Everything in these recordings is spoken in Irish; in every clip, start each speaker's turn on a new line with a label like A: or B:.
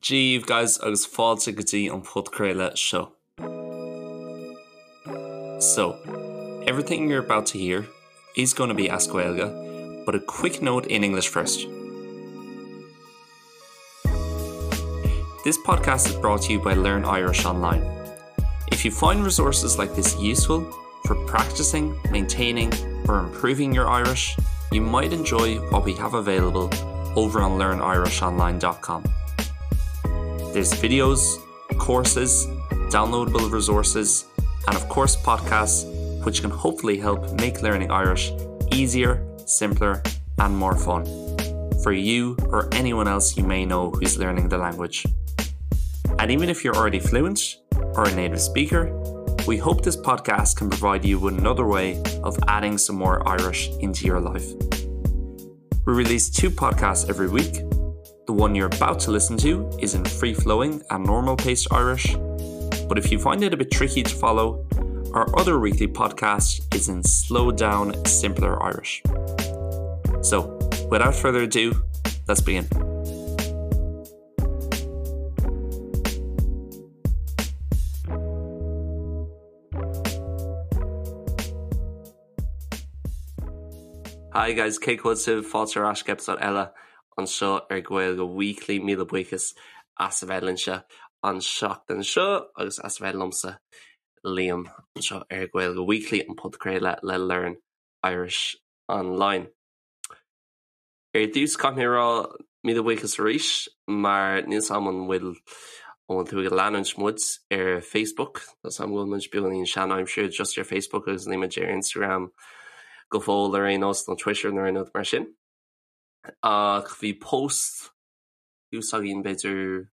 A: Dia daoibh guys agus fáilte go dtí an podchraoladh seo. So, everything you're about to hear is going to be as Gaeilge, but a quick note in English first. This podcast is brought to you by Learn Irish Online. If you find resources like this useful for practicing, maintaining or improving your Irish, you might enjoy what we have available over on learnirishonline.com. There's videos, courses, downloadable resources, and of course podcasts, which can hopefully help make learning Irish easier, simpler, and more fun for you or anyone else you may know who's learning the language. And even if you're already fluent or a native speaker, we hope this podcast can provide you with another way of adding some more Irish into your life. We release 2 podcasts every week. The one you're about to listen to is in free-flowing and normal-paced Irish, but if you find it a bit tricky to follow, our other weekly podcast is in slow down, simpler Irish. So, without further ado, let's begin. Hi guys, cén chaoi a bhfuil sibh? Fáilte ar ais go eipeasóid eile anseo ar Gaeilge Weekly. Míle buíochas as a bheith linnse an seachtain seo agus as a bheith liomsa, Liam, anseo ar Gaeilge Weekly, an podchraoladh le Learn Irish Online. Ar dtús, caithfidh mé a rá míle buíochas arís mar níl 's a'm an bhfuil an bhfuil tú ag leanúint muid ar Facebook, tá 's a'm go bhfuil muid beagáinín sean-aimseartha just ar Facebook agus níl muid ar Instagram go fóill ar aon nós nó Twitter nó aon rud mar sin. Ach bhí post thuas againn b'fhéidir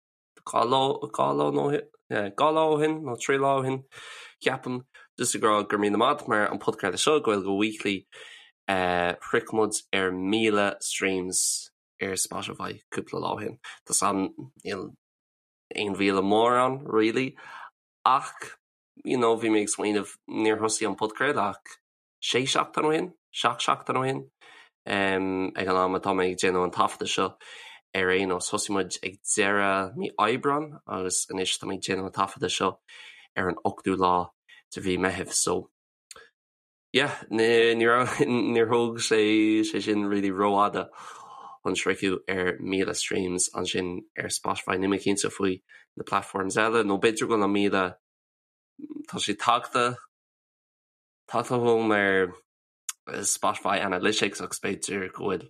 A: 2 lá, 2 lá nó 2 lá ó shin nó 3 lá ó shin, ceapaim, just ag rá go raibh míle maith agat mar an podchraoladh seo, Gaeilge Weekly, shroich muid ar 1,000 streams ar Spotify cúpla lá ó shin. Tá 's a'm níl aon mhíle mórán really ach you know bhí mé ag smaoineamh níor thosaigh an podchraoladh ach sé seachtain ó shin, seacht seachtain ó shin, ag an am atá mé ag déanamh an taifeadta seo ar aon nós. Thosaigh muid ag deireadh mí Aibreán agus anois tá mé ag déanamh an taifeadta seo ar an ochtú lá de mhí Meitheamh so yeah, ní raibh, níor thóg sé sé sin really rófhada chun sroicheadh ar 1,000 streams ansin ar Spotify. Níl mé cinnte faoi na platforms eile nó b'fhéidir go bhfuil an 1,000, tá sé tagtha Tagtha chugam ar Spotify Analytics agus b'fhéidir go bhfuil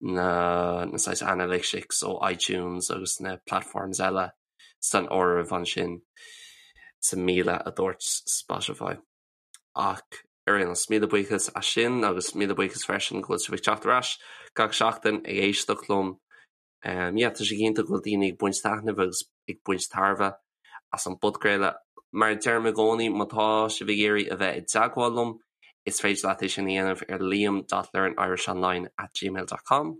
A: na na saghas analytics ó iTunes agus na platforms eile san áireamh ansin sa 1,000 a dúirt Spotify. Ach ar aon nós, míle buíochas as sin agus míle buíochas freisin go bhfuil sibh ag teacht ar ais gach seachtain ag éisteacht liom. Yeah, tá sé cinnte go bhfuil daoine ag baint taitneamh agus ag baint tairbhe as an bpodchraoladh. Mar a deirim i gcónaí, má tá sibh ag iarraidh a bheith i dteagmháil liom, is féidir leat é sin a dhéanamh ar liam dot learnirishonline at gmail dot com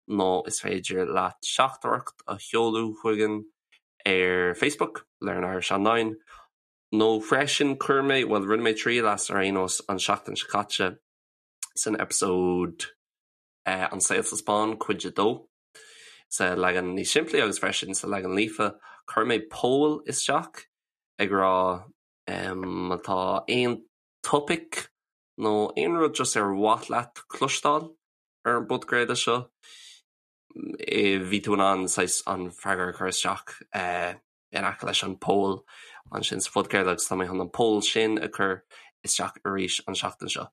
A: nó is féidir leat teachtaireacht a sheoladh chugainn ar Facebook, Learn Irish Online, nó freisin chuir mé, bhuel rinne mé triail as ar aon nós an seachtain seo caite san eipeasóid An Saol sa Spáinn, Cuid 2, sa leagan níos simplí agus freisin sa leagan líofa. Chuir mé poll isteach ag rá má tá aon topaic nó aon rud just ar mhaith leat cloisteáil ar an bpodchraoladh seo, bhí tú in ann saghas an freagra a chur isteach. in aice leis an poll ansin sa phodchraoladh agus tá mé chun an poll sin a chur isteach arís an seachtain seo.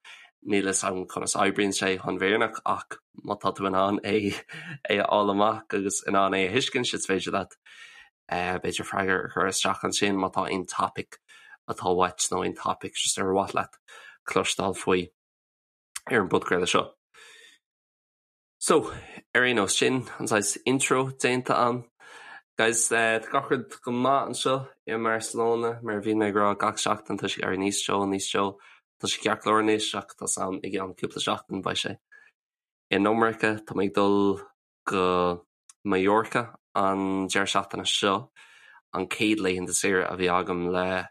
A: Níl fhios agam conas oibríonn sé chun bhfírinneach ach má tá tú in ann é é a fháil amach agus in ann é a thuiscint is féidir leat b'fhéidir freagra a chur isteach ansin má tá aon topaic atá uait nó aon topaic just ar mhaith leat cloisteáil faoi ar an bpodchraoladh seo. So, ar aon nós, sin an saghas intro déanta a'm. Guys, tá gach rud go maith anseo i mBarcelona, mar a bhíonn mé ag rá gach seachtain, tá sé ag éirí níos teo, níos teo. Tá sé ceart go leor anois ach tá 's a'm i gceann cúpla seachtain beidh sé in iomarca. Tá mé ag dul go Mallorca an deireadh seachtaine seo, an chéad laethanta saoire a bhí agam le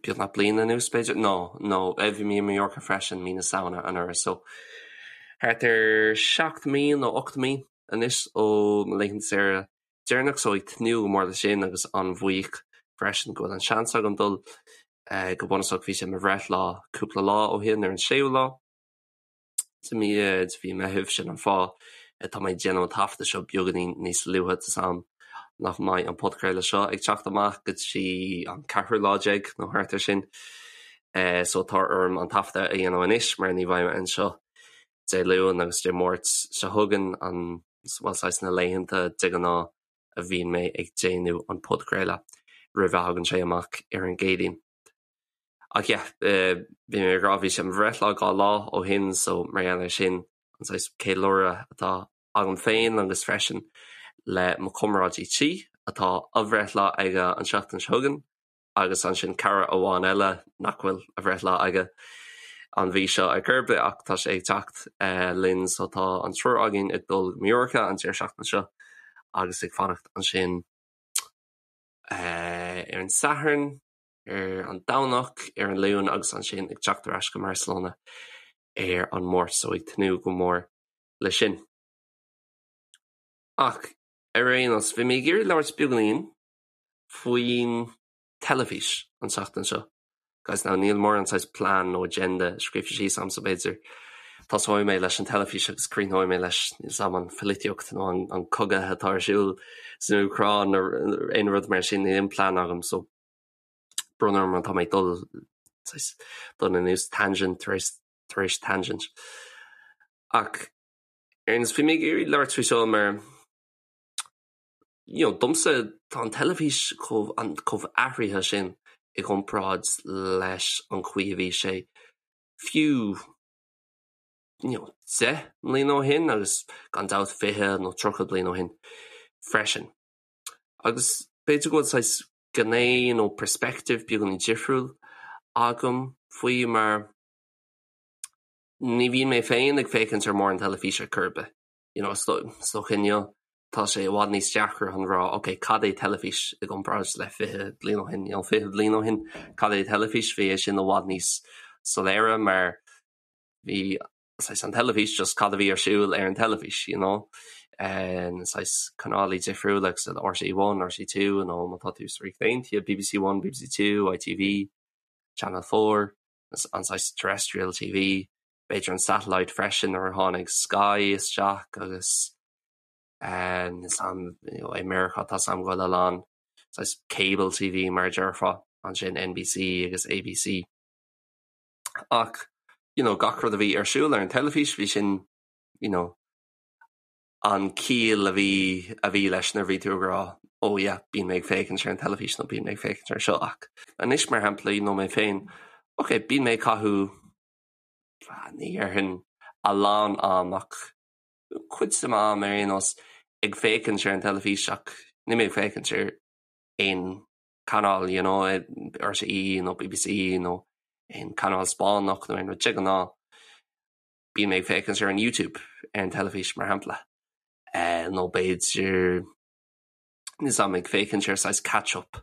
A: beagnach bliain anuas, b'fhéidir? No, no, bhí mé i Mallorca freisin mí na Samhna anuraidh, so thart ar 7 mí nó 8 mí. anois ó mo laethanta saoire deireanach so ag tnúth go mór leis sin agus an-bhuíoch freisin go bhfuil an seans agam dul. Go bunúsach bhí sé mo bhreithlá cúpla lá ó shin ar an séú lá de mhí de mhí Meitheamh, sin an fáth atá mé ag déanamh an taifeadadh seo beagáinín níos luaithe, tá 's a'm nach mbeidh an podchraoladh seo ag teacht amach go dtí an ceathrú lá déag nó thart ar sin so tá orm an taifeadadh a dhéanamh anois mar ní bheidh mé anseo Dé Luain agus Dé Máirt seo chugainn, an, bhuel, saghas na laethanta de ghnáth a bhíonn mé ag déanamh an podchraoladh roimh a thagann sé amach ar an gCéadaoin. Ach yeah, bhí mé ag rá, bhí sé mo bhreithlá dhá lá ó shin so mar gheall air sin an saghas ceiliúradh atá agam féin agus freisin le mo chomrádaí tí atá a bhreithlá aige an tseachtain seo chugainn, agus ansin cara amháin eile nach bhfuil a bhreithlá aige an mhí seo ar chor ar bith ach tá sé ag teacht linn so tá an triúr againn ag dul go Mallorca an deireadh seachtaine seo agus ag fanacht ansin ar an Satharn, ar an Domhnach, ar an Luan agus ansin ag teacht ar ais go mBarcelona ar an Máirt so ag tnúth go mór leis sin. Ach ar aon nós, bhí mé ag iarraidh labhairt beagáinín faoin teilifís an tseachtain seo. Guys, now níl mórán saghas plean nó agenda scríofa síos agam so b'fhéidir tosóidh mé leis an teilifís agus críochnóidh mé leis níl 's a'm an pholaitíocht nó an, an cogadh atá ar siúl san Úcráin nó aon rud mar sin, níl aon plean agam so brón orm má tá mé ag dul saghas dul anuas tangent tar éis tar éis tangent. Ach ar aon nós bhí mé ag iarraidh labhairt faoi seo mar you know, domsa tá an teilifís chomh, an, chomh athraithe sin i gcomparáid leis an chaoi a bhí sé fiú you know, 10 mbliana ó shin agus gan dabht 20 nó 30 bliain ó shin freisin. Agus b'fhéidir go bhfuil saghas gné nó perspective beagáinín difriúil agam faoi mar ní bhíonn mé féin ag féachaint ar mórán teilifíse ar chor ar bith. You know, is dócha inniu tá sé i bhfad níos deacra chun rá ok, cad é teilifís i gcomparáid le 20 bliain ó shin, you know, 20 bliain ó shin cad é teilifís, bhí é sin i bhfad níos soiléire mar bhí saghas an teilifís just cad a bhí ar siúl ar an teilifís, you know. Na saghas canálaí difriúla agus RTÉ One, RTÉ 2 nó má tá tú sa Ríocht Aontaithe, BBC One, BBC 2, ITV, Channel 4, an saghas terrestrial TV, b'fhéidir an satellite freisin nuair a tháinig Sky isteach agus is am i Meiriceá tá 's a'm go bhfuil a lán saghas cable TV mar a déarfá ansin NBC agus ABC. Ach you know gach rud a bhí ar siúl ar an teilifís bhí sin you know an ciall a bhí a bhí leis nuair a bhí tú ag rá oh yeah bíonn mé ag féachaint ar an teilifís nó bíonn mé ag féachaint ar seo ach anois mar shampla you know mé féin ok bíonn mé ag caitheamh ní dhéarfainn a lán am ach cuid de m'am ar aon nós ag féachaint ar an teilifís ach níl mé ag féachaint ar aon chanáil you know RTÉ nó BBC nó aon chanáil Spáinneach nó aon rud de ghnáth bíonn mé ag féachaint ar an YouTube ar an teilifís mar shampla nó b'fhéidir Níl 's a'm ag féachaint ar saghas catch up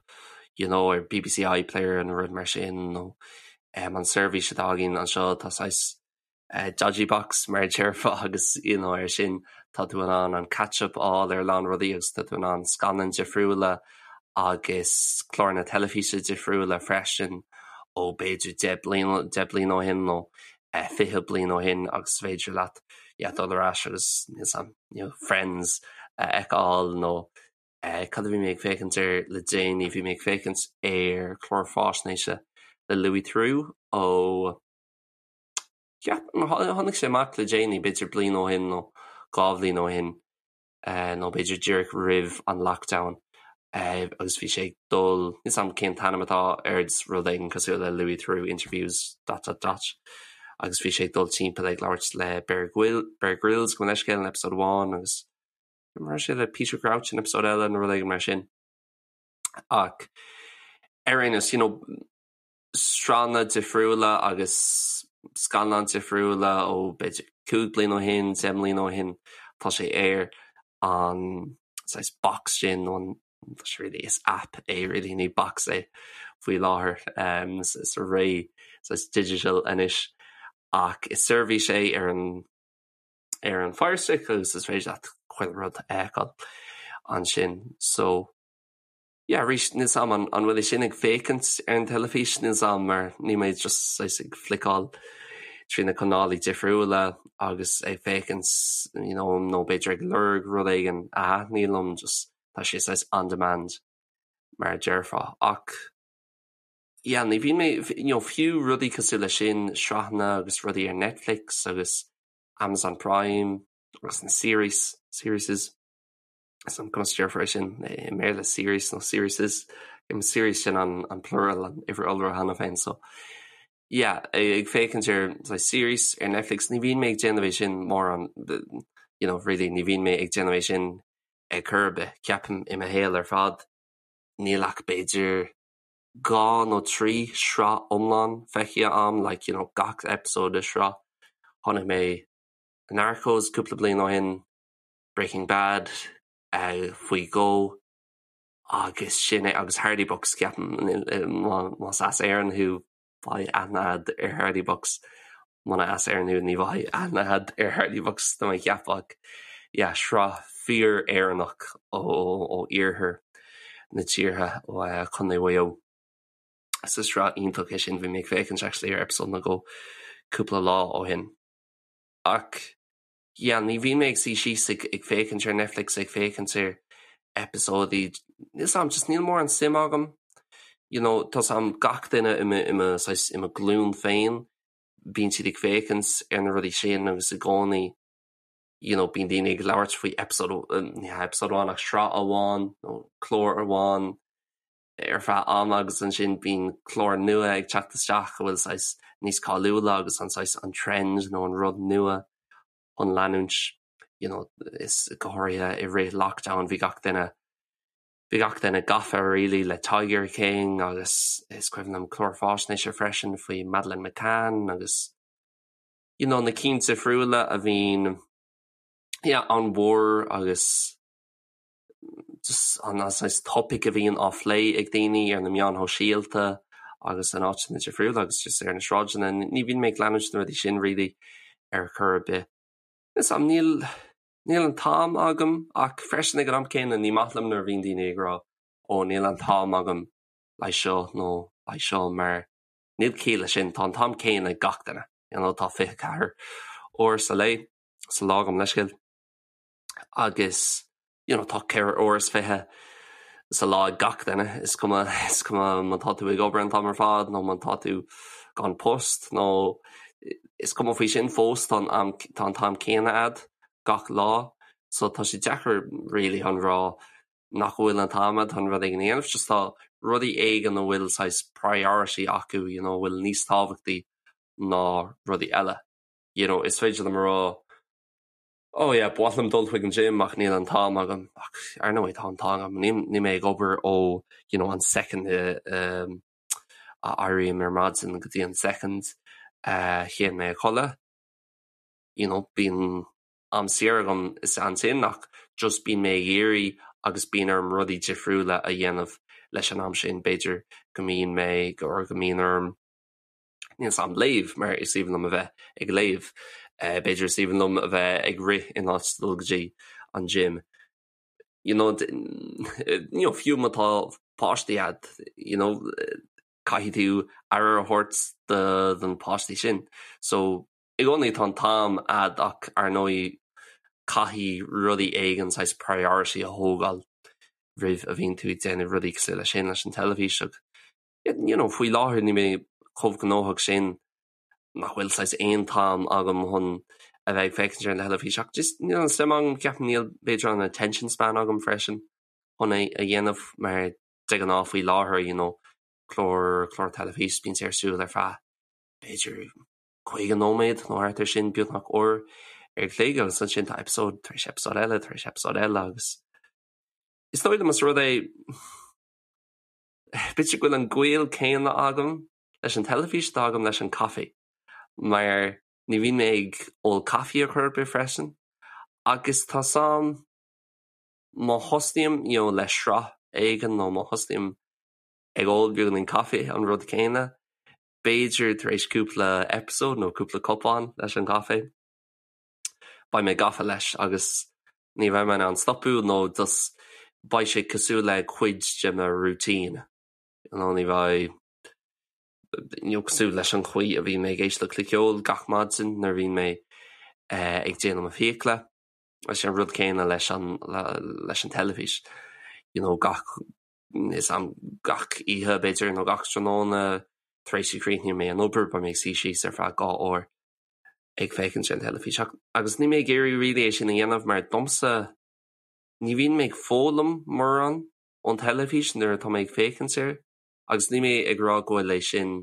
A: you know ar BBC iPlayer nó rud mar sin nó an seirbhís atá againn anseo tá saghas dodgy box mar a déarfá agus you know ar sin tá tú in ann an catch up a fháil ar a lán rudaí agus tá tú in ann scannáin difriúla agus cláranna teilifíse difriúla freisin ó b'fhéidir 10 bliain 10 bliain ó shin nó 20 bliain ó shin agus is féidir leat yeah dul ar ais agus níl 's a'm you know Friends a fheiceáil nó cad a bhí mé ag féachaint air le déanaí, bhí mé ag féachaint ar chlár faisnéise le Louis Theroux ó ceapaim tháinig sé amach le déanaí b'fhéidir bliain ó shin nó dhá bhliain ó shin nó b'fhéidir díreach roimh an lockdown agus bhí sé ag dul, níl 's a'm cén t-ainm atá air, rud éigin cosúil le Louis Theroux interviews dot dot dot agus bhí sé ag dul timpeall ag labhairt le Bear Bear Grylls gabh mo leithscéal in episode amháin agus raibh sé le Peter Crouch in episode eile nó rud éigin mar sin. Ach ar aon nós, you know, sraitheanna difriúla agus scannáin difriúla ó b'fhéidir 5 bliana ó shin, 10 mbliana ó shin, tá sé ar an saghas box sin nó an tá sé really is app é really ní box é faoi láthair sa ré saghas digital anois ach is seirbhís é ar an ar an Fire Stick agus is féidir leat chuile rud a fheiceáil ansin. So yeah arís níl 's a'm an an bhfuil é sin ag féachaint ar an teilifís, níl 's a'm mar níl mé just saghas ag fliceáil trí na canálaí difriúla agus ag féachaint you know nó b'fhéidir ag lorg rud éigin a thaitníonn liom just tá sé saghas on demand mar a déarfá ach yeah ní bhíonn mé you know fiú rudaí cosúil leis sin sraitheanna agus rudaí ar Netflix agus Amazon Prime agus na series series. Is an conas a déarfar é sin i mBéarla series nó serieses series sin an an plural an uimhir iolra cheana féin so yeah ag féachaint ar like, series ar Netflix ní bhíonn mé ag déanamh é sin mórán you know really ní bhíonn mé ag déanamh é sin ar chor ar bith ceapaim i mo shaol ar fad níl ach b'fhéidir 2 nó 3 sraith iomlán feicthe a'm like you know gach episode de shraith chonaic mé Narcos cúpla bliain ó shin Breaking Bad faoi dhó agus sin é agus Hardy Bucks ceapaim más as Éirinn thú beidh aithne a'd ar Hardy Bucks muna as Éirinn thú ní bheidh aithne a'd ar Hardy Bucks tá mé ag ceapadh ach yeah sraith fíor Éireannach ó ó iarthar na tíre ó Chontae Mhaigh Eo. So sraith iontach é sin bhí mé ag féachaint actually ar episode nó dhó cúpla lá ó shin. Ach yeah ní bhíonn mé ag suí síos ag ag féachaint ar Netflix ag féachaint ar eipeasóidí níl 's a'm just níl mórán suim agam you know tá 's a'm gach duine i mo i mo saghas i mo ghlúin féin bíonn siad ag féachaint ar na rudaí sin agus i gcónaí you know bíonn daoine ag labhairt faoi episode ní hea episode amháin ach sraith amháin nó clár amháin ar feadh ama agus ansin bíonn clár nua ag teacht isteach a bhfuil saghas níos cáiliúla agus an saghas an trend nó an rud nua chun leanúint you know is go háirithe i rith lockdown bhí gach duine bhí gach duine gafa really le Tiger King agus is cuimhin liom clár faisnéise freisin faoi Madeleine McCann agus you know na cinn difriúla a bhíonn yeah an-mhór agus just an saghas topaic a bhíonn á phlé ag daoine ar na meáin shóisialta agus in áiteanna difriúla agus just ar na sráideanna. Ní bhíonn mé ag leanúint na rudaí sin really ar chor ar bith. Is am níl níl an t-am agam ach freisin ag an am céanna ní maith liom nuair a bhíonn daoine ag rá ó níl an t-am agam le seo nó le seo mar níl ciall leis sin, tá an t-am céanna ag gach duine. You know, tá 24 uair sa lae sa lá gabh mo leithscéal. agus you know tá 24 uair sa lá ag gach duine, is cuma is cuma má tá tú ag obair an t-am ar fad nó má tá tú gan post nó is cuma faoi sin fós tá an am tá an t-am céanna a'd gach lá so tá sé deacair really chun rá nach bhfuil an t-am a'd chun rud éigin a dhéanamh just tá rudaí éigin a bhfuil saghas priority acu you know a bhfuil níos tábhachtaí ná rudaí eile you know is féidir liom a rá Oh yeah, ba mhaith liom dul chuig an gym ach níl an t-am agam. Ach ar ndóigh tá an t-am agam. Níl mé ag obair ó you know an second a éirím ar maidin go dtí an second a théann mé a chodladh. You know, bíonn am saor agam is ansin ach just bíonn mé ag iarraidh agus bíonn orm rudaí difriúla a dhéanamh leis an am sin. B'fhéidir go mbíonn mé or go mbíonn orm Níl 's a'm léamh mar is aoibhinn liom a bheith ag léamh. B'fhéidir is aoibhinn liom a bheith ag rith in áit dul go dtí an gym. You know, you know, fiú má tá páistí a'd, you know, caithfidh tú aire a thabhairt do do na páistí sin. So, i gcónaí tá an t-am a'd ach ar ndóigh caithfidh rudaí éigin saghas priority a thógáil roimh a bhíonn tú ag déanamh rudaí cosúil leis sin leis an teilifís ach you know, faoi láthair níl mé chomh gnóthach sin nach bhfuil saghas aon t-am agam chun a bheith ag féachaint ar an teilifís ach just níl an suim agam, ceapaim níl b'fhéidir an attention span agam freisin chun é a dhéanamh mar de ghnáth faoi láthair you know, clár clár teilifís bíonn sé ar siúl ar feadh b'fhéidir 50 nóiméad nó thart ar sin beagnach uair an chloig agus ansin tá episode tar éis episode eile tar éis episode eile agus is dóigh liom is rud é B'fhéidir go bhfuil an gaol céanna agam leis an teilifís atá agam leis an caife, mar ní bhíonn mé ag ól caife ar chor ar bith freisin, agus tá 's a'm má thosnaím you know le sraith éigin nó má thosnaím ag ól beagáinín caife, an rud céanna, b'fhéidir tar éis cúpla episode nó cúpla cupán leis an gcaife, beidh mé gafa leis agus. Ní bheidh mé in ann stopadh nó just beidh sé cosúil le cuid de mo routine. You know, ní bheidh you know, cosúil leis an chaoi a bhíonn mé ag éisteacht le ceol gach maidin nuair a bhíonn mé eh, ag déanamh mo fiacla. Is é an rud céanna leis an leis an teilifís. You know, gach is am gach oíche b'fhéidir nó gach tráthnóna tar éis a chríochnaíonn mé an obair, beidh mé ag suí síos ar feadh 2 uair ag féachaint ar an teilifís. Agus níl mé ag iarraidh really é sin a dhéanamh mar domsa ní bhíonn mé ag foghlaim mórán ón teilifís nuair atá mé ag féachaint air agus níl mé ag rá go bhfuil é sin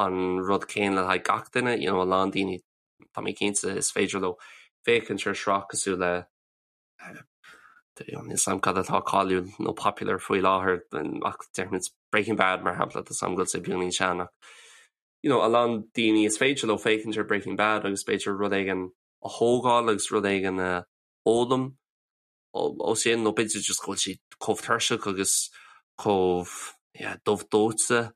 A: an rud céanna le haghaidh gach duine, you know, a lán daoine tá mé cinnte is féidir leo féachaint ar shraith cosúil le Níl a fhios agam cad atá cáiliúil nó popular faoi láthair ach déarfaimid Breaking Bad mar shampla, tá a fhios agam go bhfuil sé beagáinín sean ach you know, a lán daoine is féidir leo féachaint ar Breaking Bad agus b'fhéidir rud éigin a thógáil agus rud éigin a fhoghlaim ó sin nó b'fhéidir just go bhfuil siad chomh tuirseach agus chomh yeah, dubh dóite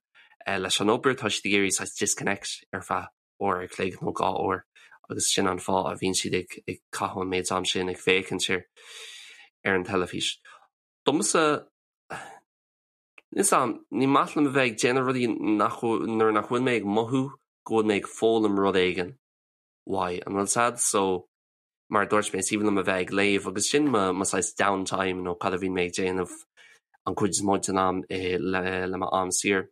A: eh, leis an obair, tá siad ag iarraidh saghas disconnect ar feadh uair a chloig nó 2 uair agus sin an fáth a bhíonn siad ag ag caitheamh an méid am sin ag féachaint ar ar an teilifís. Domsa, níl a fhios agam, ní maith liom a bheith ag déanamh rudaí nach nuair nach bhfuil mé ag mothú go bhfuil mé ag foghlaim rud éigin uaidh, an bhfuil a fhios agat? So, mar a dúirt mé, is aoibhinn liom a bheith ag léamh agus sin mo mo saghas downtime nó cad a bhíonn mé ag déanamh an chuid is mó den am le le mo am saor.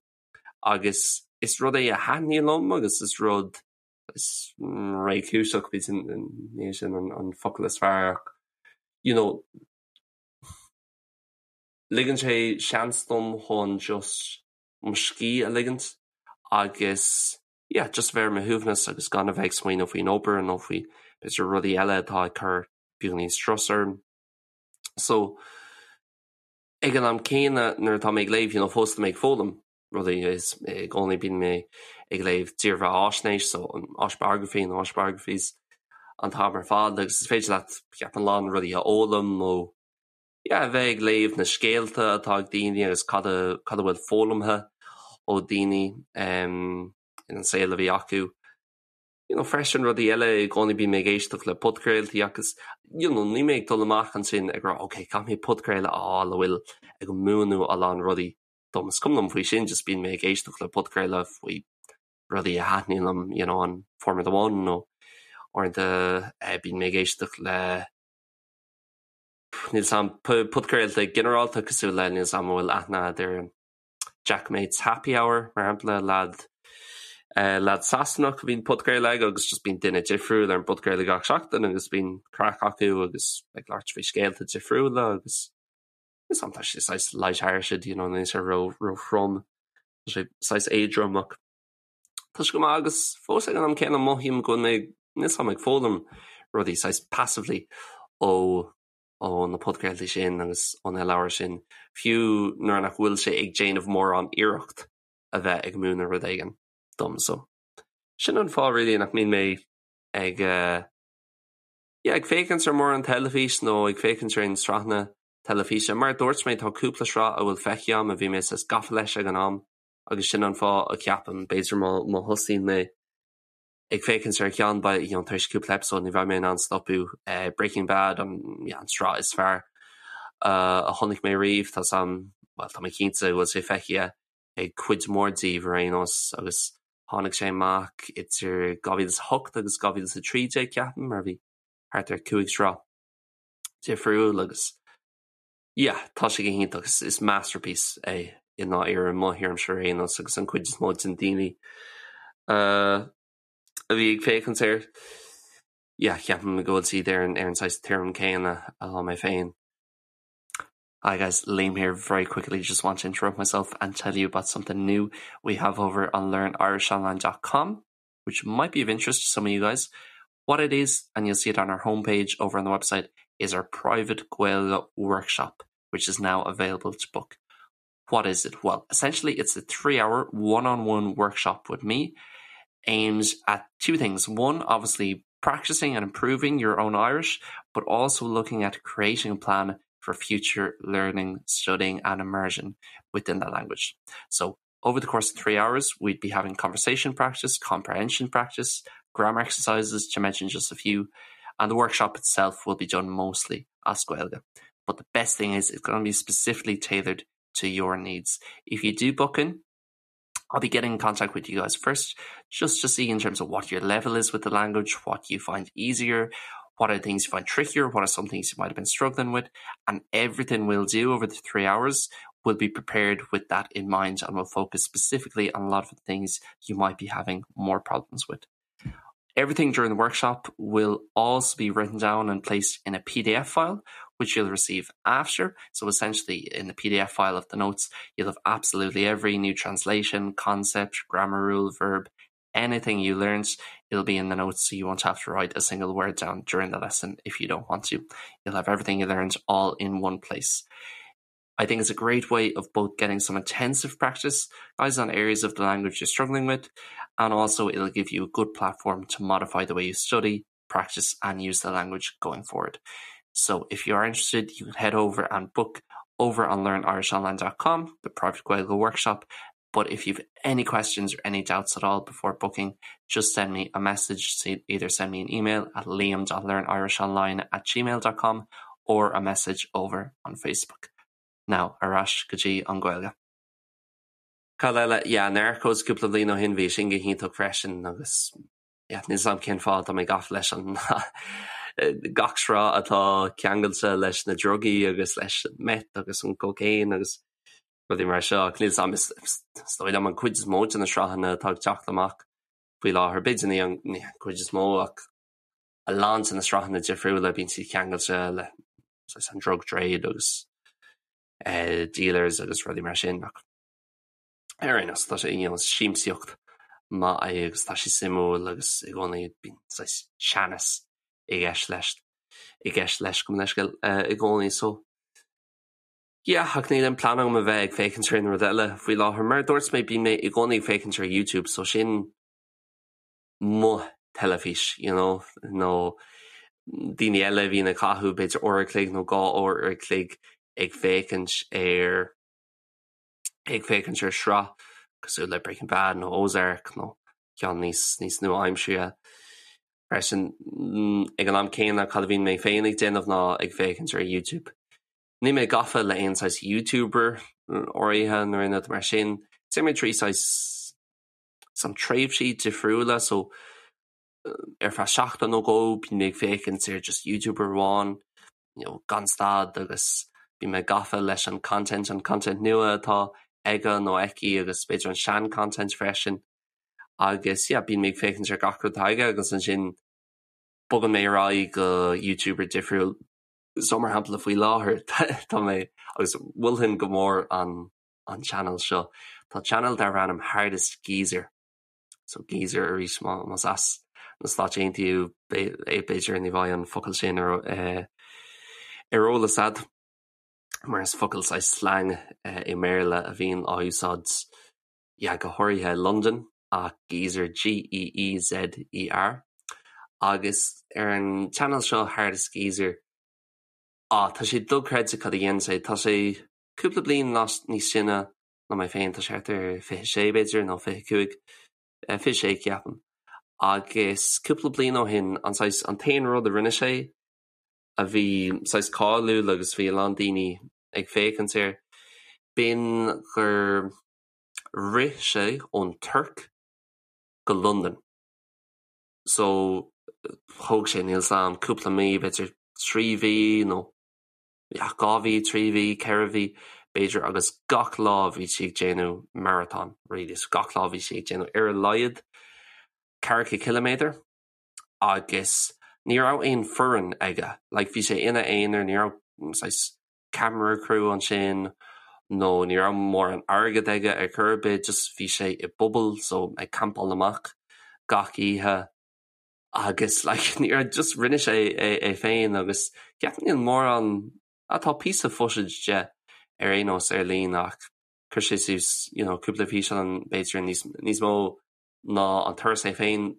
A: Agus is rud é a thaitníonn liom agus is rud is réchúiseach, b'fhéidir ní hé sin an focal is fearr ach you know ligeann sé seans dom chun just mo scíth a ligint agus yeah just bheith ar mo shuaimhneas agus gan a bheith ag smaoineamh faoin obair nó faoi b'fhéidir rudaí eile atá ag cur beagáinín strus orm. So Ag an am céanna, nuair atá mé ag léamh, you know, fós tá mé ag foghlaim rudaí, is i gcónaí bíonn mé ag léamh dírbheathaisnéis, so an autobiography nó autobiographies an t-am ar fad agus is féidir leat, ceapaim, a lán rudaí a fhoghlaim ó, yeah, a bheith ag léamh na scéalta atá ag daoine agus cad a, cad a bhfuil foghlamtha ó daoine um, in an saol a bhí acu. you know, freisin rudaí eile i gcónaí bíonn mé ag éisteacht le podchraoltaí agus you know, níl mé ag dul amach ansin ag rá ok, caithfidh mé podchraoladh a fháil a bhfuil ag múineadh a lán rudaí dom. Is cuma liom faoi sin, just bíonn mé ag éisteacht le podchraoladh faoi rudaí a thaitníonn liom, you know, an Formula One nó uaireanta eh, bíonn mé ag éisteacht le níl a fhios agam podchraolta ginearálta cosúil le níl a fhios agam an bhfuil aithne agat ar an Jack Mate's Happy Hour, mar shampla, leaid leaid Sasanach a bhíonn podchraoladh aige agus just bíonn duine difriúil ar an bpodchraoladh gach seachtain agus bíonn craic acu agus ag labhairt faoi scéalta difriúla agus is tá sé saghas light-hearted, you know, níl sé ró róthrom, tá sé saghas éadrom ach tá sé go maith agus fós ag an am céanna mothaím go bhfuil mé níl a fhios agam ag foghlaim rudaí saghas passively ó ó na podchraoltaí sin agus ó na leabhair sin, fiú nuair nach bhfuil sé ag déanamh mórán iarracht a bheith ag múineadh rud éigin dom. So, sin an fáth really nach mbíonn mé ag eh, yeah, ag féachaint ar mórán teilifís nó ag féachaint ar aon sraitheanna teilifíse. Mar a dúirt mé, tá cúpla sraith a bhfuil feicthe agam a bhí mé saghas gafa leis ag an am agus sin an fáth a cheapaim, b'fhéidir má má thosaíonn mé ag féachaint ar cheann beidh you know tar éis cúpla episode ní bheidh mé in ann stopadh eh, Breaking Bad an yeah, an sraith is fearr uh, a chonaic mé riamh tá a fhios agam well, tá mé cinnte go bhfuil sé feicthe ag cuid mhór díbh ar aon nós agus tháinig sé amach idir 2008 agus 2013 ceapaim mar bhí thart ar 5 sraith difriúil agus yeah, tá sé go hiontach is, is masterpiece é i ndáiríre mo thuairimse ar aon nós agus an chuid is mó den daoine uh, a bhí ag féachaint air yeah, ceapaim go bhfuil siad ar an, ar an saghas tuairim céanna atá mé féin. Hi guys, Liam here very quickly just want to interrupt myself and tell you about something new we have over on learnirishonline.com which might be of interest to some of you guys. What it is, and you'll see it on our homepage over on the website, is our private Gaeilge workshop, which is now available to book. What is it? Well, essentially it's a three-hour one-on-one workshop with me aimed at two things. One, obviously practicing and improving your own Irish, but also looking at creating a plan for future learning, studying and immersion within the language. So over the course of 3 hours, we'd be having conversation practice, comprehension practice, grammar exercises, to mention just a few. And the workshop itself will be done mostly as Gaeilge. But the best thing is it's going to be specifically tailored to your needs. If you do book in, I'll be getting in contact with you guys first, just to see in terms of what your level is with the language, what you find easier, what are things you find trickier, what are some things you might have been struggling with, and everything we'll do over the 3 hours will be prepared with that in mind and will focus specifically on a lot of the things you might be having more problems with. Everything during the workshop will also be written down and placed in a PDF file, which you'll receive after. So essentially in the PDF file of the notes, you'll have absolutely every new translation, concept, grammar rule, verb, anything you learned, it'll be in the notes so you won't have to write a single word down during the lesson if you don't want to. You'll have everything you learned all in one place. I think it's a great way of both getting some intensive practice guys on areas of the language you're struggling with, and also it'll give you a good platform to modify the way you study, practice and use the language going forward. So if you are interested, you can head over and book over on learnirishonline.com, the private Gaeilge workshop. But if you've any questions or any doubts at all before booking, just send me a message. So either send me an email at liam.learnirishonline at gmail.com or a message over on Facebook. Now, ar ais go dtí an Ghaeilge. Cad eile? Yeah, Narcos cúpla bliain ó shin bhí sin go hiontach freisin agus yeah, níl 's a'm cén fáth tá mé gafa leis an gach sraith atá ceangailte leis na drugaí agus leis an meth agus an cocaine agus rudaí mar seo ach níl 's a'm is dóigh liom an cuid is mó de na sraitheanna atá ag teacht amach faoi láthair, b'fhéidir ní an cuid is mó ach a lán de na sraitheanna difriúla bíonn siad ceangailte le an drug trade agus dealers agus rudaí mar sin ach ar aon nós tá sé you know siamsaíocht maith é agus tá sé suimiúil agus i gcónaí bíonn saghas teannas i gceist leis i gceist leis gabh mo leithscéal i gcónaí so yeah ach níl aon plean agam a bheith ag féachaint ar aon rud eile faoi láthair mar a dúirt mé bíonn mé i gcónaí ag féachaint ar YouTube so sin mo theilifís you know nó daoine eile a bhíonn ag caitheamh b'fhéidir uair a chloig nó 2 uair a chloig ag féachaint ar ag féachaint ar sraith cosúil le Breaking Bad nó Ozark nó ceann níos níos nua-aimseartha freisin. Ag an am céanna cad a bhíonn mé féin ag déanamh ná ag féachaint ar YouTube. Níl mé gafa le aon saghas YouTuber áirithe nó aon rud mar sin. Téann mé trí saghas some tréimhsí difriúla so ar feadh seachtain nó dhó bíonn mé ag féachaint ar just YouTuber amháin you know gan stad agus bíonn mé gafa leis an content, an content nua atá aige nó aici agus b'fhéidir an sean content freisin agus yeah bíonn mé ag féachaint ar gach rud atá aige agus ansin bogann mé ar aghaidh go YouTuber difriúil so mar shampla faoi láthair tá mé agus mholfainn go mór an an channel seo. Tá channel darb ainm Hardest Geezer. So geezer arís más as na Stáit Aontaithe b'fhéidir ní bheidh an focal sin ar eh, ar eolas a'd mar is focal saghas slang eh, i mBéarla a bhíonn á úsáid yeah, go háirithe i Londain ach geezer G-E-E-Z-E-R. Agus ar an channel seo Hardest Geezer á tá sé dochreidte cad a dhéanann sé. Tá sé cúpla bliain níos sine ná mé féin, tá sé thart ar 26 b'fhéidir nó 25, 26 ceapaim. Agus cúpla bliain ó shin an saghas, an t-aon rud a rinne sé a bhí saghas cáiliúil agus bhí a lán daoine ag féachaint air, b'in gur rith sé ón Tuirc go Londain. So thóg sé, níl 's a'm, cúpla mí, b'fhéidir trí mhí nó yeah, 2 mhí, 3 mhí, 4 mhí, b'fhéidir, agus gach lá bhí sí ag déanamh marathon, really, so gach lá bhí sí ag déanamh ar a laghad ceathracha ciliméadar agus ní raibh aon foireann aige, like bhí sé ina aonar, ní raibh saghas camera crew ansin nó ní raibh mórán airgead aige ar chor ar bith, just bhí sé i bpuball so ag campáil amach gach oíche. agus like ní raibh just rinne sé é é féin agus ceapaim níl mórán ah tá píosa footage de ar aon nós ar líne ach chuir sé suas you know cúpla físeán b'fhéidir níos níos mó ná an turas é féin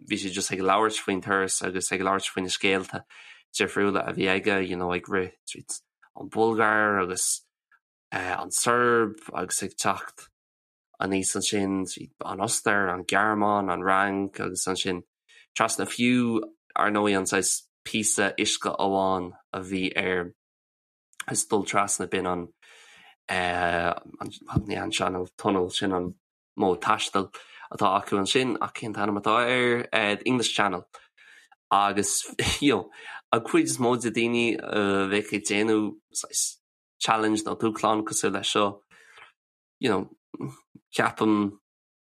A: bhí sé just ag labhairt faoin turas agus ag labhairt faoi na scéalta difriúla a bhí aige you know ag rith tríd an Bhulgáir agus eh, an tSeirbia agus ag teacht aníos ansin tríd an Ostair, an Ghearmáin, an Fhrainc agus ansin trasna fiú ar ndóigh an saghas. píosa uisce amháin a bhí air is dul trasna b'in an ní an Channel Tunnel sin an modh taistil atá acu ansin ach cén t-ainm atá air? The English Channel agus you know an chuid is mó de daoine a bheadh ag déanamh saghas challenge nó dúshlán cosúil leis seo you know ceapaim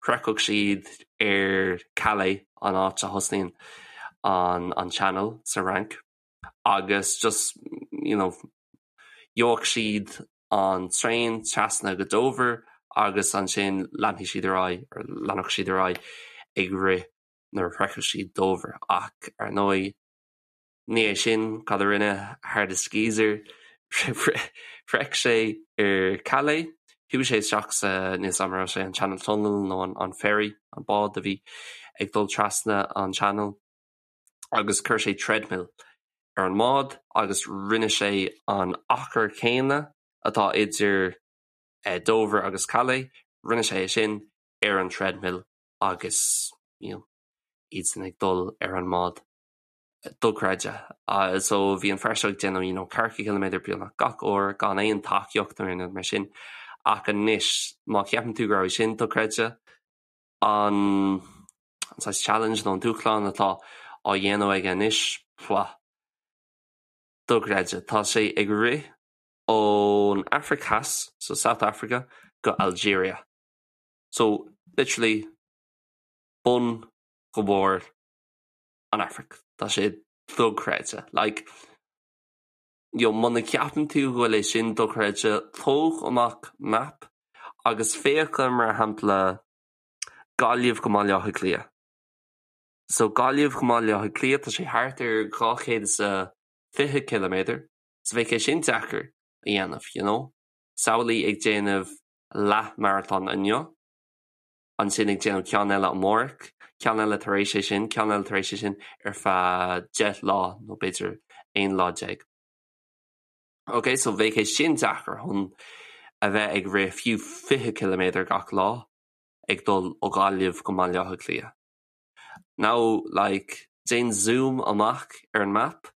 A: shroichfeadh siad ar Calais an áit a thosnaíonn an an Channel sa Fhrainc agus just you know gheobhadh siad an traein trasna go Dover agus ansin leanfaidh siad ar aghaidh or leanfadh siad ar aghaidh ag rith nuair a shroichfeadh siad Dover ach ar ndóigh Ní é sin cad a rinne Hardest Geezer. Shroich sé ar Calais, chuaigh sé isteach sa, níl 's a'm an raibh sé an Channel Tunnel nó an ferry, an bád a bhí ag dul trasna an Channel, agus chuir sé treadmill ar an mbád agus rinne sé an achar céanna atá idir Dover agus Calais, rinne sé é sin ar an treadmill agus you know iadsan ag dul ar an mbád. dochreidte. So bhí an fear seo ag déanamh you know ceathracha ciliméadar beagnach gach uair gan aon tacaíocht nó aon rud mar sin. Ach anois má cheapann tú go raibh sin dochreidte, an an saghas challenge nó an dúshlán atá á dhéanamh aige anois, pfah, dochreidte. Tá sé ag rith ón Afraic Theas, so South Africa, go Algeria. So literally bun go barr an Afraic. Tá sé dochreidte. Like, you know, muna gceapann tú go bhfuil é sin dochreidte, tóg amach map agus féach ar, mar shampla, Gaillimh go mBaile Átha Cliath. So Gaillimh go mBaile Átha Cliath, tá sé thart ar 220 ciliméadar, so bheadh é sin deacair a dhéanamh, you know. Samhlaigh ag déanamh leath-marathon inniu, ansin ag déanamh ceann eile amárach, ceann eile tar éis é sin, ceann eile tar éis é sin ar feadh 10 lá nó b'fhéidir 11 lá. Ok, so bheadh é sin deacair chun a bheith ag rith fiú 20 ciliméadar gach lá ag dul ó Ghaillimh go mBaile Átha Cliath. Now, like, déan zoom amach ar an map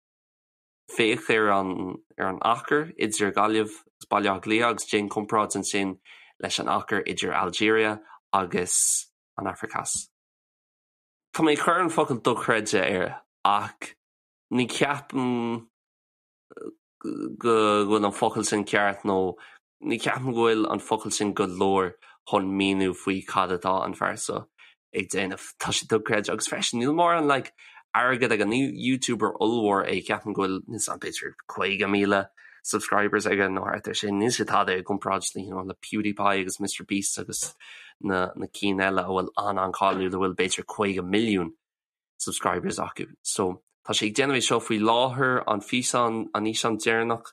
A: Féach ar an ar an achar idir Gaillimh agus Baile Átha Cliath agus déan comparáid ansin leis an achar idir Algeria agus an Afraic Theas. Tá mé ag cur an focal dochreidte air ach ní cheapaim go bhfuil an focal sin ceart nó Ní cheapaim go bhfuil an focal sin go leor chun míniú faoi cad atá an fear seo ag déanamh. Tá sé dochreidte agus freisin níl mórán like airgead aige, ní YouTuber ollmhór é, ceapaim go bhfuil níl 's a'm b'fhéidir 50,000 subscribers aige nó thart ar sin. Níl sé tada i gcomparáid le you know le PewDiePie agus Mr Beast agus na na cinn eile a bhfuil an-an-cáiliúil a bhfuil b'fhéidir 50 milliún subscribers acu. So tá sé ag déanamh é seo faoi láthair an físeán an fhíseán deireanach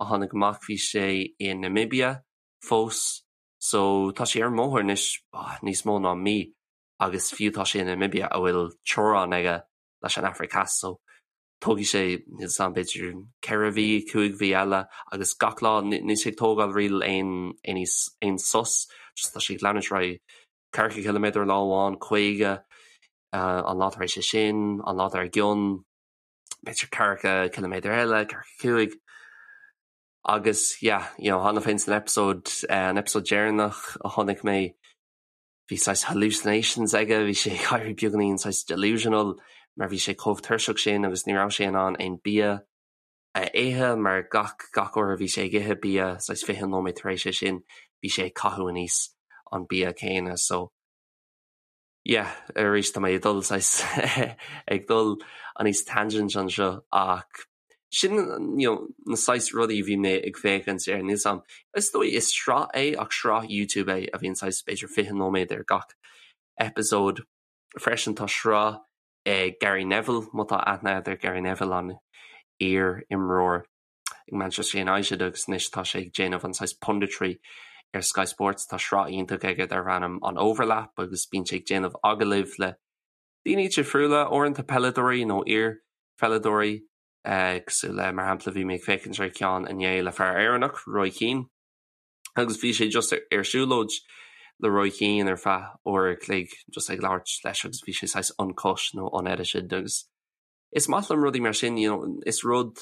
A: a tháinig amach bhí sé i Namibia fós so tá sé ar an mbóthar anois níos mó ná mí agus fiú tá sé i Namibia a bhfuil teorainn aige leis an Afraic Theas so tógfaidh sé níl 's a'm b'fhéidir 4 mhí, 5 mhí eile agus gach lá níl sé ag tógáil really aon aon aon sos just tá sé ag leanúint ar aghaidh 40 ciliméadar lá amháin, 50 an lá tar éis é sin, an lá dár gcionn. b'fhéidir 40 ciliméadar eile, 45. Agus yeah, you know, cheana féin san episode, an episode deireanach a chonaic mé, bhí saghas hallucinations aige, bhí sé ag éirí beagáinín saghas delusional mar bhí sé chomh tuirseach sin agus ní raibh sé in ann aon bia a ithe mar gach gach uair a bhí sé ag ithe bia saghas 20 nóiméad tar éis é sin bhí sé ag caitheamh aníos an bia céanna so yeah, arís tá mé ag dul saghas ag dul aníos tangent anseo ach sin you know, na saghas rudaí a bhí mé ag féachaint ar níl 's a'm. Is dóigh is sraith é ach sraith YouTube é a bhíonn saghas b'fhéidir 20 nóiméad ar gach episode. Freisin tá sraith ag Gary Neville, má tá aithne agat ar Gary Neville an iar-imreoir ag Manchester United agus anois tá sé ag déanamh an saghas punditry ar Sky Sports. Tá sraith iontach aige darb ainm an Overlap agus bíonn sé ag déanamh agallaimh le daoine difriúla, uaireanta peileadóirí nó iar-pheileadóirí cosúil le, mar shampla, bhí mé ag féachaint ar cheann inné le fear Éireannach, Roy Keane, agus bhí sé just ar siúlóid le Roy Keane ar feadh uair a chloig just ag labhairt leis agus bhí sé saghas uncut nó unedited agus. Is maith liom rudaí mar sin, you know, is rud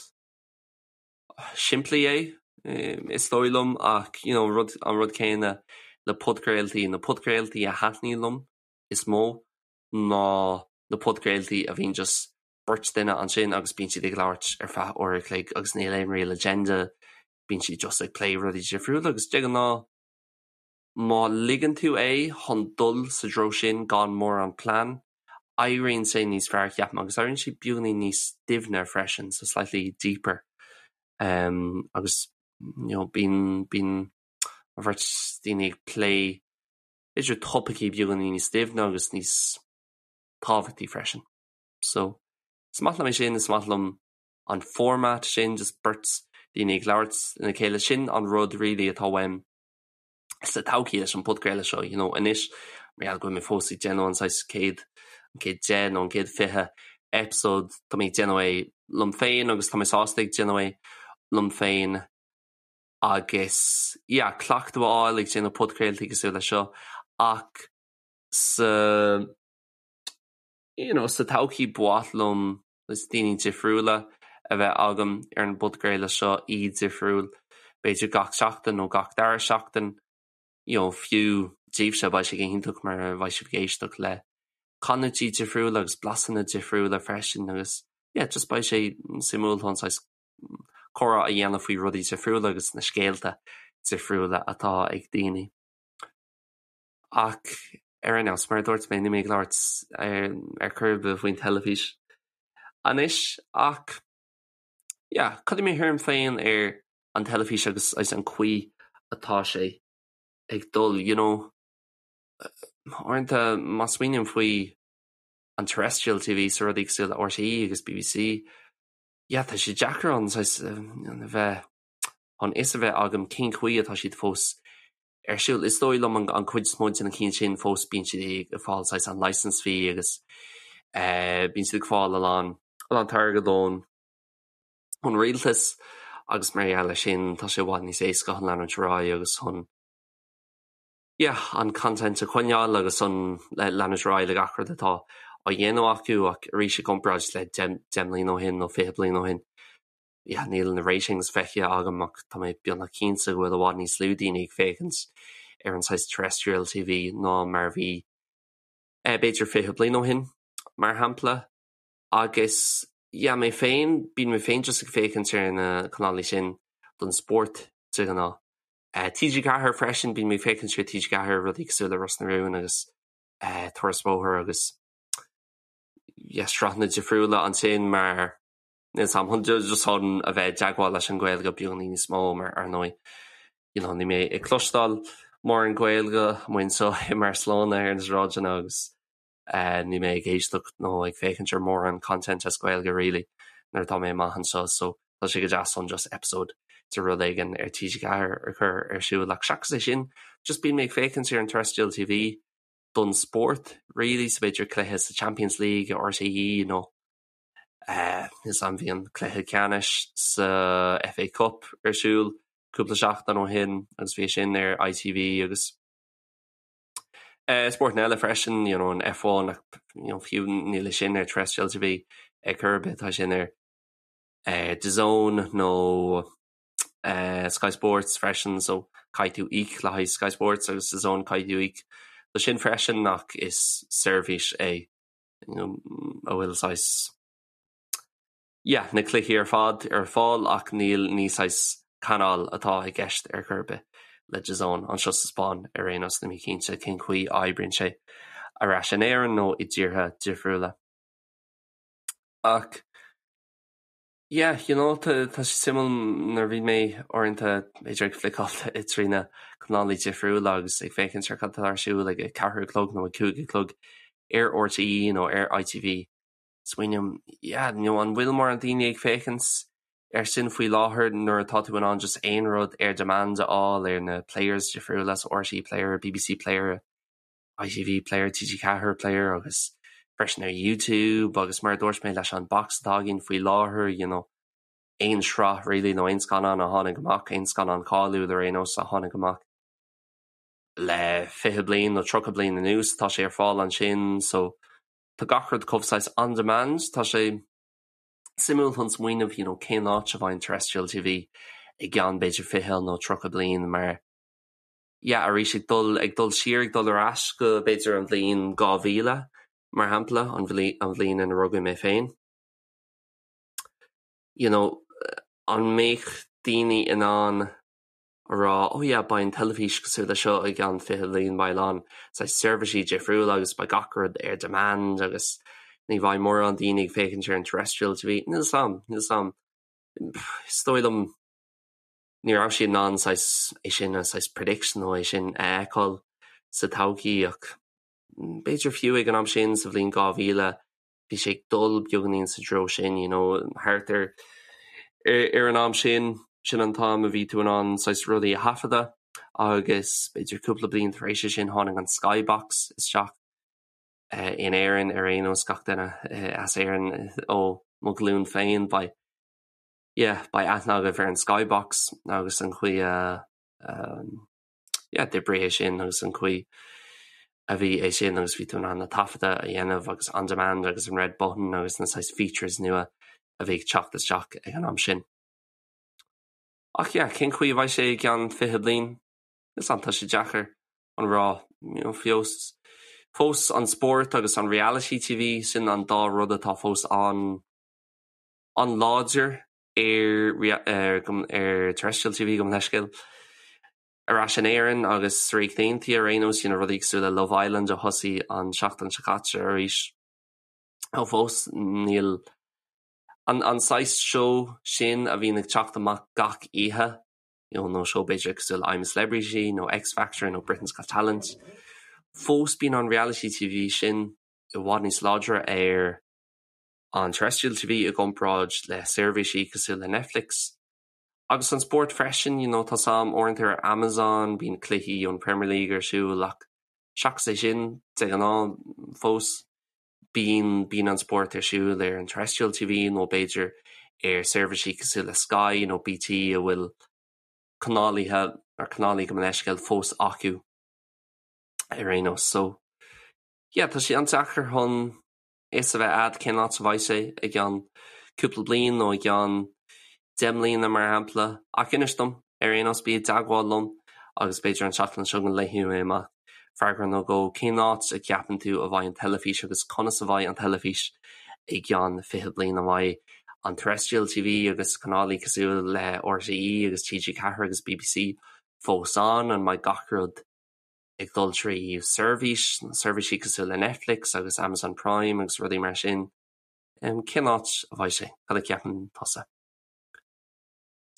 A: simplí é is dóigh liom ach you know rud an rud céanna le podchraoltaí, na podchraoltaí a thaitníonn liom is mó ná na podchraoltaí a bhíonn just beirt duine ansin agus bíonn siad ag labhairt ar feadh uair a chloig agus níl aon real agenda, bíonn siad just ag plé rudaí difriúla agus de ghnáth má ligeann tú é chun dul sa treo sin gan mórán plean, éiríonn sé níos fearr ceapaim agus éiríonn sé beagáinín níos doimhne freisin, so slightly deeper um, agus you know, bíonn bíonn an bheirt daoine ag plé idir topaicí beagáinín níos doimhne agus níos tábhachtaí freisin. So, is maith liom é sin, is maith liom an format sin, just beirt daoine ag labhairt lena chéile, sin an rud really atá uaim sa todhchaí leis an podchraoladh seo, you know, anois mar gheall go bhfuil mé fós ag déanamh an saghas céad, an chéad 10 nó an chéad 20 episode, tá mé ag déanamh é liom féin agus tá mé sásta ag déanamh é liom féin agus yeah, cleachtadh a fháil ag déanamh podchraoltaí cosúil le seo ach sa you know, sa todhchaí ba mhaith liom is daoine difriúla a bheith agam ar an bpodchraoladh seo, aoi difriúil, b'fhéidir gach seachtain nó gach dara seachtain, you know, fiú daoibhse beidh sé go hiontach mar beidh sibh ag éisteacht le canúintí difriúla agus blasanna difriúla freisin agus yeah, just beidh sé suimiúil chun saghas comhrá a dhéanamh faoi rudaí difriúla agus na scéalta difriúla atá ag daoine. Ach ar aon nós, mar a dúirt mé, níl mé ag labhairt ar chor ar bith faoin teilifís anois ach yeah, cad é mo thuairim féin ar an teilifís agus agus an chaoi atá sé ag dul, you know, uaireanta má smaoiním faoi an terrestrial TV so rudaí cosúil le RTÉ agus BBC, yeah, tá sé deacair an saghas a bheith chun fhios a bheith agam cén chaoi atá siad fós ar siúl. Is dóigh liom an chuid is mó de na cinn sin fós bíonn siad ag fáil saghas an license fee agus bíonn siad ag fáil a lán a lán airgead ón ón rialtas agus mar gheall air sin tá sé i bhfad níos éasca chun leanúint ar aghaidh agus chun yeah, an content a choinneáil agus an leanúint ar aghaidh le gach rud atá á dhéanamh acu ach arís i gcomparáid le 10 mbliana ó shin nó 20 bliain ó shin yeah, níl na ratings feicthe agam ach tá mé beagnach cinnte go bhfuil i bhfad níos lú daoine ag féachaint ar an saghas terrestrial TV ná mar a bhí eh, b'fhéidir 20 bliain ó shin, mar shampla. Agus yeah, mé féin, bíonn mé féin just ag féachaint ar na canálaí sin don spórt de ghnáth. Eh, TG4 freisin, bíonn mé ag féachaint ar TG4 rudaí cosúil le Ros na Rún agus eh, Turas Bóthair agus yeah, sraitheanna difriúla ansin mar Níl 's a'm, just chun a bheith i dteagmháil leis an Ghaeilge beagáinín níos mó mar ar ndóigh you know níl mé ag cloisteáil mórán Gaeilge amuigh anseo i mBarcelona ar na sráideanna agus eh níl mé ag éisteacht nó ag féachaint ar mórán content as Gaeilge really nuair atá mé amach anseo so tá sé go deas chun just episode de rud éigin ar TG4 a chur ar siúl ach seachas é sin just bíonn mé ag féachaint ar an terrestrial TV don spórt really so b'fhéidir cluiche sa Champions League RTÉ nó Níl 's a'm bhí an cluiche ceannais sa FA Cup ar siúl cúpla seachtain ó shin agus bhí sin ar ITV agus spórtanna eile freisin, you know, an F1 ach you know, fiú níl sin ar terrestrial TV ar chor ar bith, tá sin ar DAZN nó Sky Sports freisin so caithfidh tú íoc le haghaidh Sky Sports agus DAZN caithfidh tú íoc le sin freisin ach is seirbhís é a bhfuil saghas yeah na cluichí ar fad ar fáil ach níl ní saghas canáil atá i gceist ar chor ar bith le DAZN anseo sa Spáinn ar aon nós níl mé cinnte cén chaoi a oibríonn sé ar ais in Éirinn nó i dtíortha difriúla. Ach Yeah, you know, tá tá sé suimiúil nuair a bhí mé uaireanta b'fhéidir ag fliceáil trí na canálaí difriúla agus ag féachaint ar cad atá ar siúl ag a ceathair a chlog nó ag 5 a chlog ar RTÉ nó ar ITV. Smaoiním, yeah, you know, an bhfuil mórán daoine ag féachaint ar sin faoi láthair nuair atá tú in ann just aon rud ar demand a fháil ar na players difriúla, so RTÉ Player, BBC Player, ITV Player, TG4 Player agus freisin ar YouTube agus mar a dúirt mé leis an box atá againn faoi láthair, you know, aon sraith really nó aon scannán a tháinig amach, aon scannán cáiliúil ar aon nós a tháinig amach le 20 bliain nó 30 bliain anuas, tá sé ar fáil ansin so tá gach rud chomh saghas on demand, tá sé. Suimiúil chun smaoineamh you know cén áit a bheidh an terrestrial TV i gceann b'fhéidir 20 nó 30 bliain mar yeah arís ag dul ag dul siar ag dul ar ais go b'fhéidir an bhliain 2000 mar shampla an an bhliain ina rugadh mé féin. You know an mbeadh daoine in ann a rá, oh yeah, beidh an teilifís cosúil le seo i gceann 20 bliain, beidh a lán saghas seirbhísí difriúla agus beidh gach rud ar demand agus ní bheidh mórán daoine ag féachaint ar an terrestrial TV. Níl 'fhios a'm, níl 'fhios a'm. Is dóigh liom ní raibh siad in ann saghas é sin a saghas prediction nó é sin a fheiceáil sa todhchaí ach b'fhéidir fiú ag an am sin sa bhliain 2000 bhí sé ag dul beagáinín sa treo sin, you know, thart ar ar an am sin, sin an t-am a bhí tú in ann saghas rudaí a thaifeadadh agus b'fhéidir cúpla bliain tar éis sin tháinig an Skybox isteach in Éirinn ar aon nós gach duine as Éirinn ó mo ghlúin féin beidh yeah, beidh aithne agaibh ar an Skybox agus an chaoi a yeah, d'oibrigh é sin agus an chaoi a bhí é sin agus bhí tú in ann na taifeadta a dhéanamh agus on demand agus an red button agus na saghas features nua a bhí ag teacht isteach ag an am sin. Ach yeah, cén chaoi a bheidh sé i gceann 20 bliain? Is an tá sé deacair a rá you know, fós fós an spórt agus an reality TV sin an dá rud atá fós an an-láidir ar ar ar terrestrial TV gabh mo leithscéal ar ais in Éirinn agus sa Ríocht Aontaithe ar aon nós you know rudaí cosúil le Love Island a thosaigh an seachtain seo caite arís. Ó fós níl an an saghas seó sin a bhíonn ag teacht amach gach oíche you know nó seó b'fhéidir cosúil le I'm a Celebrity nó X Factor nó Britain's Got Talent. Fós bíonn an reality TV sin i bhfad níos láidre ar an terrestrial TV i gcomparáid le seirbhísí cosúil le Netflix. Agus an spórt freisin, you know, tá 's a'm uaireanta ar Amazon, bíonn cluichí ón Premier League ar siúl ach seachas é sin, de ghnáth fós bíonn bíonn an spórt ar siúl ar an terrestrial TV nó b'fhéidir ar seirbhísí cosúil le Sky nó BT a bhfuil canálaithe ar canálaí gabh mo leithscéal fós acu ar aon nós. So yeah, tá sé an-deacair chun fhios a bheith a'd cén áit a bheidh sé i gceann cúpla bliain nó i gceann 10 mbliana mar shampla. Ach inis dom, ar aon nós, bí i dteagmháil liom agus b'fhéidir an tseachtain seo go léifidh mé amach freagra nó dhó cén áit a gceapann tú a bheidh an teilifís agus conas a bheidh an teilifís i gceann 20 bliain. An mbeidh an terrestrial TV agus canálaí cosúil le RTÉ agus TG4 agus BBC fós ann? An mbeidh gach rud ag dul trí seirbhís, seirbhísí cosúil le Netflix agus Amazon Prime agus rudaí mar sin. Cén áit a bheidh sé? Cad a cheapann tusa?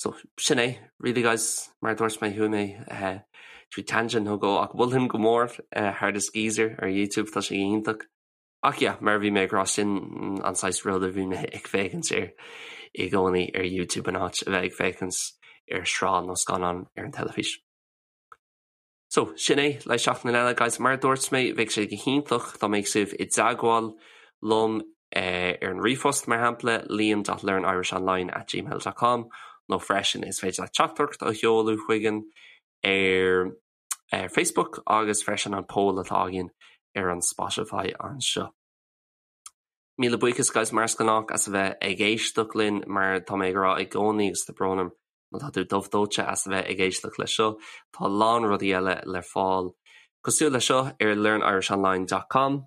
A: So, sin é, really guys, mar a dúirt mé, chuaigh mé trí tangent nó dhó ach mholfainn go mór Hardest Geezer ar YouTube, tá sé iontach. Ach yeah, mar a bhí mé ag rá, sin an saghas rud a bhí mé ag féachaint air i gcónaí ar YouTube in áit a bheith ag féachaint ar shraith nó scannán ar an teilifís. So, sin é, le seachtain eile, guys. Mar a dúirt mé, bheadh sé go hiontach dá mbeadh sibh i dteagmháil liom ar an ríomhphost, mar shampla, liam dot learnirishonline at gmail dot com nó freisin is féidir leat teachtaireacht a sheoladh chugainn ar ar Facebook agus freisin an poll atá againn ar an Spotify anseo. Míle buíochas guys mar is gnách as a bheith ag éisteacht linn mar tá mé ag rá i gcónaí agus tá brón orm Má tá tú dubh dóite as a bheith ag éisteacht leis seo, tá a lán rudaí eile le fáil cosúil leis seo ar learnirishonline dot com.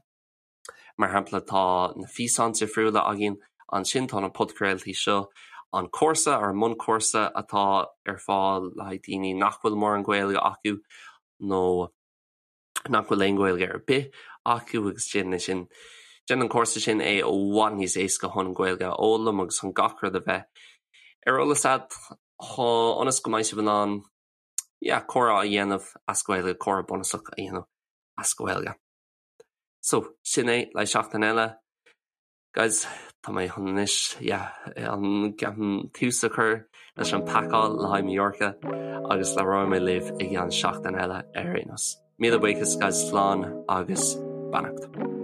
A: Mar shampla, tá na físeáin difriúla againn ansin, tá na podchraoltaí seo, an cúrsa, ár mbunchúrsa atá ar fáil le haghaidh daoine nach bhfuil mórán Gaeilge acu nó nach bhfuil aon Ghaeilge ar bith acu agus déanann sin déanann an cúrsa sin é i bhfad níos éasca chun an Ghaeilge a fhoghlaim agus chun gach rud a bheith ar eolas agat ionas go mbeidh sibh in ann yeah, comhrá a dhéanamh as Gaeilge, comhrá bunúsach a dhéanamh as Gaeilge. So, sin é le seachtain eile. Guys, tá mé chun anois, yeah, an ceapaim tús a chur leis an pacáil le haghaidh Mallorca agus labhróidh mé libh i gceann seachtain eile ar aon nós. Míle buíochas guys, slán agus beannacht.